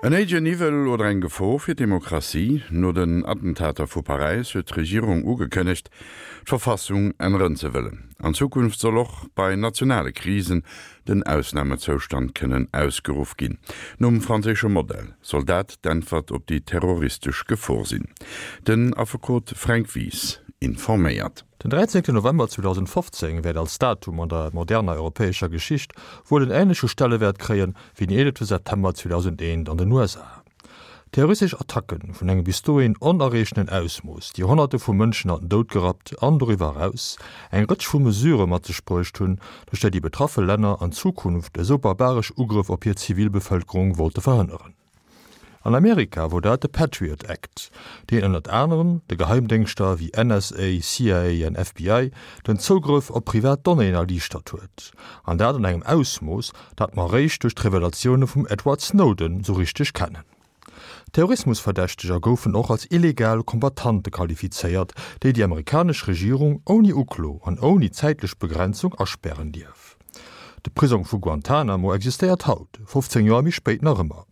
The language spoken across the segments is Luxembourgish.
En héijen Niwwel oder eng Gefor fir d'Demokratie? No den Attentater vu Paräis huet d'Regierung ugekënnegt, d'Verfassung änneren ze wëllen. An Zukunft soll och bei nationale Krisen den Ausnamezoustand kënnen ausgeruff ginn. Nom franséische Modell soll dat d'Äntwert op déi terroristesch Gefor sinn. Den Affekot Fränk Wies informéiert. Den 13 November 2015 wäert als Datum an der moderner europäescher Geschicht wuel en änleche Stellewäert kréien, wéi den 11 September 2001 an den USA. Terroristesch Attacke vun engem bis dohin onerreechtenen Ausmooss, déi Honnerte vu Mënschen an den Doud gerappt an doriwwer eraus eng Rëtsch vu Mesurë mat sech bruecht hunn, duerch déi déi betraffe Länner an Zukunft esou barbaresch Ugrëff op hir Zivilbevëlkerung wollte verhënneren. An Amerika wor dat de Patriot Act, deen ënnert anerem de Geheimdéngschter wéi NSA, CIA an FBI den Zougrëff op privat Donnéeën erliichtert huet, an dat an engem Ausmooss, dat mer eréischt duerch d'Revelatioune vum Edward Snowden sou richteg kennen. Terrorismusverdächteger goufen och als illegal Combattante qualifizéiert, déi déi amerikanesch Regierung ouni Uklo an ouni zäitlech Begrenzung aspären dierf. De Prisong vu Guantanamo existéiert haut, 15 Joer méi spéit, nach ëmmer.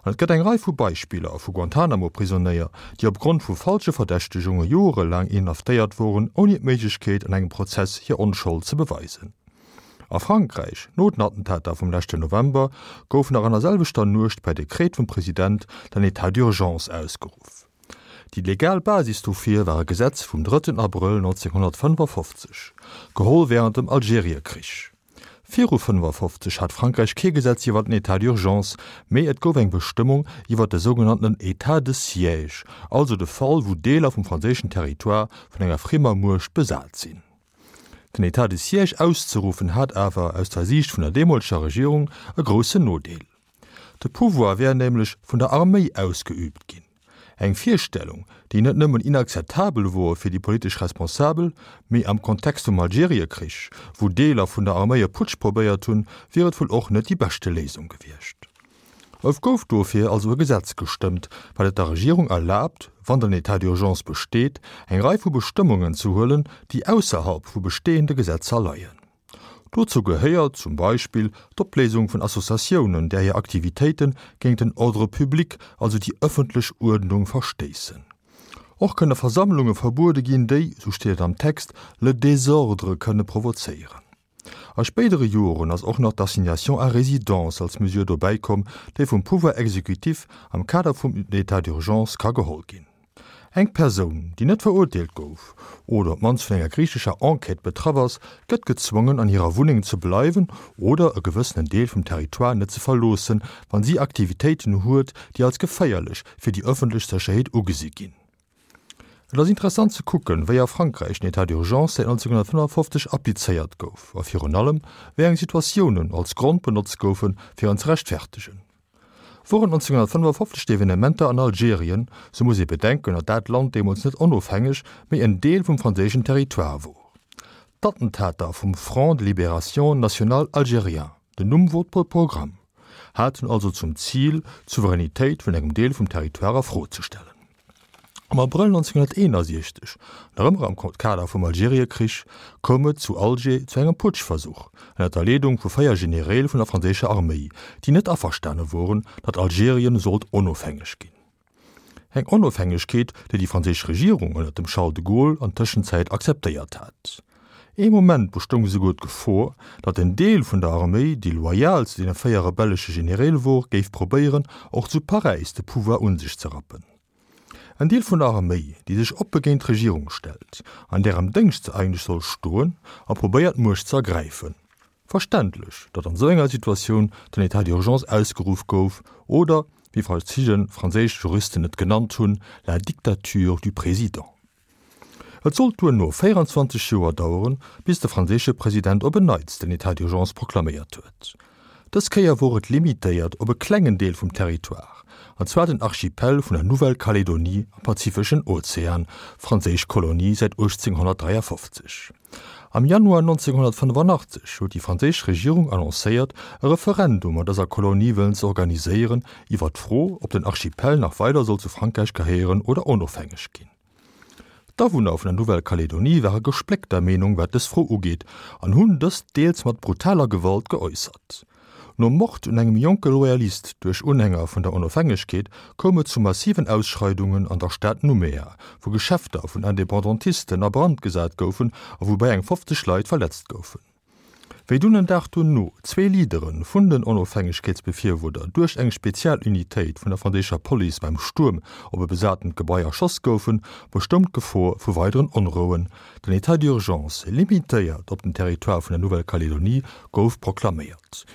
An et gëtt eng Rei vu Beispiller vu Guantanamo-Prisonéier, déi op Grond vu falsche Verdächtegunge joerelaang inhaftéiert woren, ouni d'Méiglechkeet, an engem Prozess hir Onschold ze beweisen. A Frankräich, no den Attentater vum leschten November, gouf nach an der selwechter Nuecht per Dekret vum President den État d'urgence ausgeruff. Déi legal Basis dofir war e Gesetz vum drëtten Abrëll 1955, geholl wärend dem Algeriekrich. Viru 55 hat Frankräich kee Gesetz iwwer den État d'urgence, mee et gouf eng Bestëmmung iwwer de sougenanntenen État de siège, also de Fall wou Deeler vum franséischen Territoire vun enger friemer Muecht besat sinn. Den État de siège auszeruffen hat awer, aus der Siicht vun der deemoleger Regierung, e groussen Nodeel. De Pouvoir wär nämlech vun der Arméi ausgeüübt ginn. Eng Virstellung, déi net nëmmen inakzeptabel wor fir déi politesch Responsabel, mee am Kontext vum Algeriekrich, wou Deeler vun der Arméi e Putsch probéiert hunn, wier et wuel och net déi beschte Léisung gewiescht. Et gouf dofir also e Gesetz gestëmmt, wat et der Regierung erlaabt, wann den État d'urgence besteet, eng Rei vu Bestëmmungen ze huelen, déi ausserhalb vu bestehende Gesetzer leien. Dozou gehéiert zum Beispill d'Opléisung vun Associatiounen, där hir Aktivitéite géint den Ordre public, also déi ëffentlech Uerdnung, verstéissen. Och kënne Versammlunge verbuede ginn, déi, sou steet et am Text, le désordre kënne provozéieren. A spéidere Joren ass och nach d'Assignation à résidence als Mesure dobäikomm, déi vum Pouvoir exécutif am Kader vum État d'urgence ka geholl ginn. Eng Persoun, déi net verurteelt gouf oder op d'mannst vun enger griichescher Enquête betraff ass, gëtt gezwongen an hirer Wunneng ze bleiwen oder e gewëssenen Deel vum Territoire net ze verloossen, wann si Aktivitéiten huet, déi als geféierlech fir déi ëffentlech Sécherheet ugesi ginn. Et ass interessant ze kucken, wéi a Frankräich den État d'urgence säit 1955 applizéiert gouf a virun allem, wéi eng Situatiounen als Grond benotzt goufen, fir en ze rechtfertegen. Woren 1955 d'Evenementer an Algerien, sou muss ee bedenken, datt dat Land deemools net onofhängeg, mee en Deel vum franséischen Territoire wor. D'Attentater vum Front de Libération Nationale Algérien, den Numm wor Programm, haten also zum Zil, d'Souveränitéit vun engem Deel vum Territoire a Fro ze stellen. Am Abrëll 1961, nach ëmmer am Kader vum Algeriekrich, koum et zu Alger zu engem Putschversuch ënner der Leedung vu 4 Genereel vun der franséischer Arméi, déi net averstane woren, datt Algerien sollt onofhängeg ginn. Eng Onofhängegkeet, déi déi franséisch Regierung ënner dem Charles de Gaulle an Tëschenzäit akzeptéiert hat. Ee Moment bestoung esouguer d'Gefor, datt en Deel vun der Arméi, déi loyal zu deene 4 rebellesche Genereel wor, géif probéieren, och zu Paräis de Pouvoir un sech ze rappen. En Deel vun der Arméi, déi sech oppe géint d'Regierung stellt, an där am Déngscht se eigentlech soll stoen, a probéiert d'Muecht ze ergräifen. Verständlech, datt an esou enger Situatioun den État d'urgence ausgeruff gouf, oder, wéi verschidde franséisch Juristen et genannt hunn, la dictature du président. Et sollt duerno 24 Joer daueren, bis de franséische President op en Neits den État d'urgence proklaméiert huet. Dës Kéier wor et limitéiert op e klengen Deel vum Territoire, an zwar den Archipel vun der Nouvelle-Calédonie am Pazifeschen Ozean, franséisch Kolonie säit 1853. Am Januar 1985 huet déi franséisch Regierung annoncéiert, e Referendum an dëser Kolonie wëllen ze organiséieren iwwer d'Fro, ob den Archipel nach weider soll zu Frankräich gehéieren oder onofhängeg ginn. D'Awunner vun der Nouvelle-Calédonie ware gespléckter Meenung wat dës Fro ugeet an hunn dëst deels mat brutaler Gewalt geäussert. Nom Mord un engem jonke Loyalist duerch Unhänger vun der Onofhängegkeet koum et zu massiven Ausschreidungen an der Stad Nouméa, wou Geschäfter vun Independantisten a Brand gesat goufen a woubäi eng 50 Leit verletzt goufen. Wéi dunn en Dag dono zwee Leadere vun den Onofhängegkeetsbefirwuerder duerch eng Spezialunitéit vun der franséischer Police beim Stuerm op e besatent Gebai erschoss goufen, bestoung d'Gefor vu weideren Onrouen. Den État d'urgence, limitéiert op den Territoire vun der Nouvelle-Calédonie, gouf proklaméiert.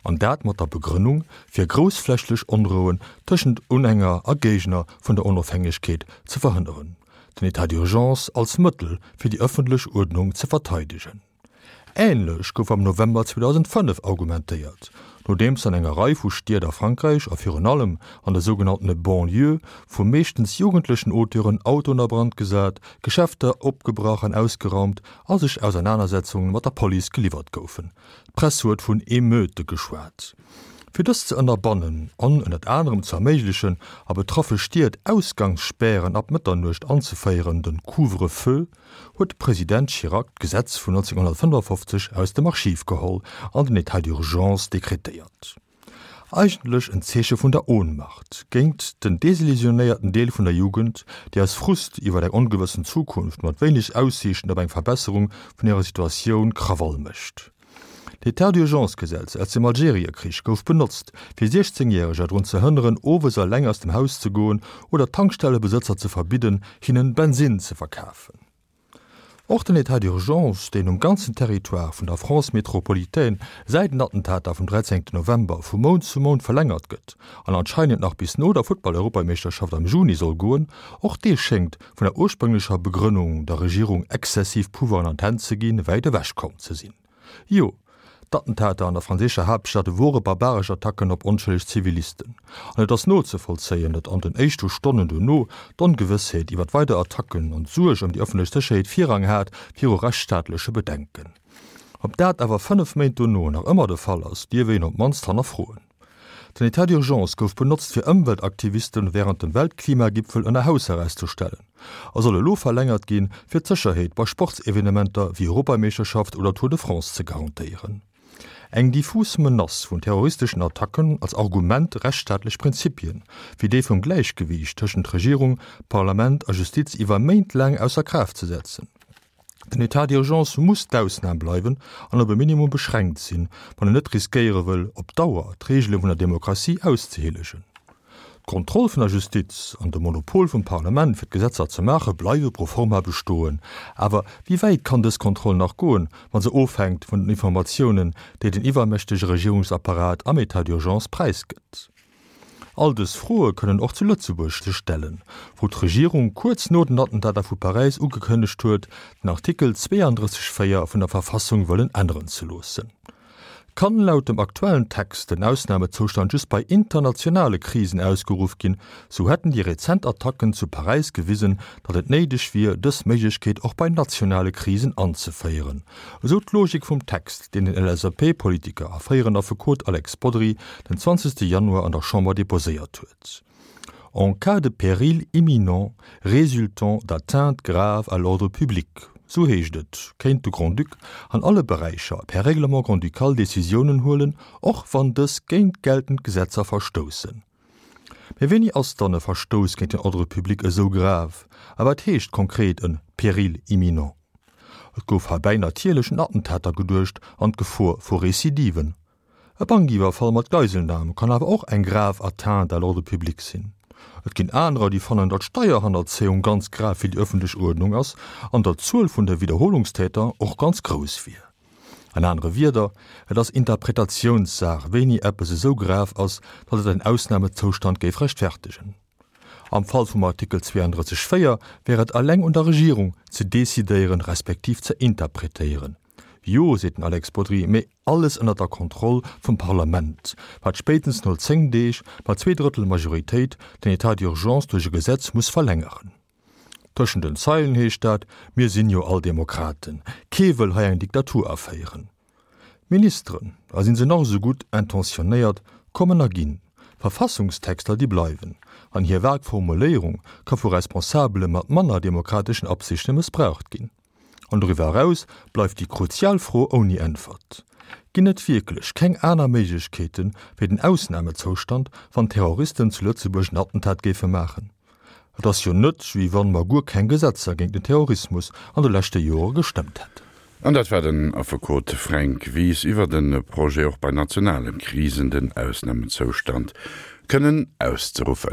An dat mat der Begrënnung, fir groussflächlech Onrouen tëschent Unhänger a Géigner vun der Onofhängegkeet ze verhënneren. Den État d'urgence als Mëttel fir déi ëffentlech Uerdnung ze verteidegen. Änlech gouf am November 2005 argumentéiert, nodeems an enger Rei vu Stied a Frankräich a virun allem an de sougenanntene Banlieuë vu meeschtens jugendlechen Auteuren Autoen a Brand gesat, Geschäfter opgebrach an ausgeraumt a sech Ausernanersetzunge mat der Police geliwwert goufen. D'Press huet vun Emeute geschwat. Fir dëst ze ënnerbannen an ënnert anerem ze erméiglechen, a betraffe Stied Ausgangsspären ab Mëtternuecht anzeféieren, den Couvre-feu, huet de President Chirac d'Gesetz vun 1955 aus dem Archiv geholl an den État d'urgence dekretéiert. Eigentlech en Zeeche vun der Ohnmacht géint den desillusionéierten Deel vun der Jugend, déi aus Frust iwwer eng ongewëssen Zukunft mat wéineg Aussiichten op eng Verbesserung vun hirer Situatioun Krawall mécht. D'État d'urgence-Gesetz aus dem Algeriekrich gouf benotzt, fir 16 Järeger drun ze hënneren, owes eleng aus dem Haus ze goen oder Tankstellebesëtzer ze verbidden, hinnen Bensinn ze verkafen. Och den État d'urgence, deen um ganzen Territoire vun der France métropolitaine säit den Attentater vum 13 November vu Mount zu Mount verlängert gëtt an anscheinend nach bis no der Futtball-Europameeschterschaft am Juni soll goen, och dee schéngt vun der ursprünglecher Begrënnung, der Regierung exzessiv Pouvoiren an d'Hänn ze ginn, wäit ewech komm ze sinn. Jo, d'Attentater an der franséischer Haaptstad wore barbaresch Attacken op onschëlleg Zivilisten. An et ass nozevollzéien, datt an den éischte Stonnen dono d'Ongewëssheet iwwer weider Attacken an d'Suerg ëm déi ëffentlech Sécherheet Virrang hat viru rechtsstaatleche Bedenken. Ob dat awer 5 Méint dono nach ëmmer de Fall ass, dierf een op d'mannst hannerfroen. Den Etat d'urgence gouf benotzt fir Ëmweltaktivisten wärend dem Weltklimagipfel ënner Hausarrest ze stellen a soll elo verlängert ginn, fir d'Sécherheet bei Sportsevenementer wéi Europameeschterschaft oder Tour de France ze garantéieren. Eng diffus Menace vun terroristeschen Attacken als Argument rechtsstaatlech Prinzipien, wéi déi vum Gläichgewiicht tëschent Regierung, Parlament a Justiz iwwer Méint laang ausser Kraaft ze setzen. Den État d'urgence muss d'Ausnam bleiwen an op e Minimum beschränkt sinn, wann en net riskéiere wëll, op Dauer d'Reegele vun der Demokratie auszehielegen. D'Kontroll vun der Justiz an de Monopol vum Parlament fir d'Gesetzer ze maache bleiwe pro forma bestoen. Awer wéi wäit kann dës Kontroll nach goen, wa se ofhänkt vun den Informatiounen, déi den iwwermächtege Regierungsapparat am État d'urgence präisgëtt? All dës Froe kënnen och zu Lëtzebuerg sech stellen, wou d'Regierung kuerz no den Attentater vu Paräis ugekënnegt huet, den Artikel 32, 4 vun der Verfassung wëllen änneren ze loossen. Kann laut dem aktuellen Text den Ausnamezoustand just bei internationale Krisen ausgeruff ginn, sou hätten déi rezent Attacken zu Paräis gewisen, datt et néideg wier, dës Méiglechkeet och bei nationale Krisen anzeféieren, esou d'Logik vum Text. deen den LSAP-Politiker a fréieren Affekot Alex Bodry den 20 Januar an der Chamber deposéiert huet. En cas de péril imminent résultant d'atteintes graves à l'ordre public, sou heescht et, kéint de Grand-Duc an alle Beräicher per Règlement grand-ducal Decisiounen huelen, och wann dës géint geltend Gesetzer verstoussen. Mee wéini ass dann e Verstouss géint den Ordre public esou grave a wat heescht konkret e péril imminent? Et gouf heibäi natierlech un Attentater geduecht an d'Gefor vu Recidiven. E Bankiwwerfall mat Geiselnam kann awer och eng grave Atteinte à l'ordre public sinn. Et ginn anerer, déi fannen, datt Steierhannerzéiung ganz grav fir déi ëffentlech Uerdnung ass an datt d'Zuel vun de Widderholungstäter och ganz grouss wier. An anere Wierder, et ass Interpretatiounssaach, wéini eppes esou grav ass, datt et en Ausnamezoustand géif rechtfertegen. Am Fall vum Artikel 32, 4 wär et eleng un der Regierung, ze decidéieren, respektiv ze interpretéieren. Jo, seet den Alex Bodry, mee alles ënnert der Kontroll vum Parlament, wat spéitens no 10 Deeg mat Zweedrëttel Majoritéit den État d'urgence duerch e Gesetz muss verlängeren. Tëschent den Zeilen heescht dat, Mir sinn jo all Demokraten, kee wëll hei eng Diktatur aféieren. D'Ministeren, a sinn se nach esou gutt intentionnéiert, kommen a ginn. Verfassungstexter, déi bleiwen. An hir vag Formuléierung ka vu Responsabele mat manner demokrateschen Absichte mëssbraucht ginn. An doriwwer eraus bleift déi kruzial Fro ouni Äntwert. Ginn et wierklech keng aner Méiglechkeete wéi den Ausnamezoustand, wann Terroristen zu Lëtzebuerg en Attentat géife maachen? Et ass jo net, wéi wann mer guer keng Gesetzer géint den Terrorismus an de leschte Jore gestëmmt hätten. An dat war den Affekot Fränk Wies iwwer de Projet, och bei nationale Krisen den Ausnamezoustand kënnen auszeruffen.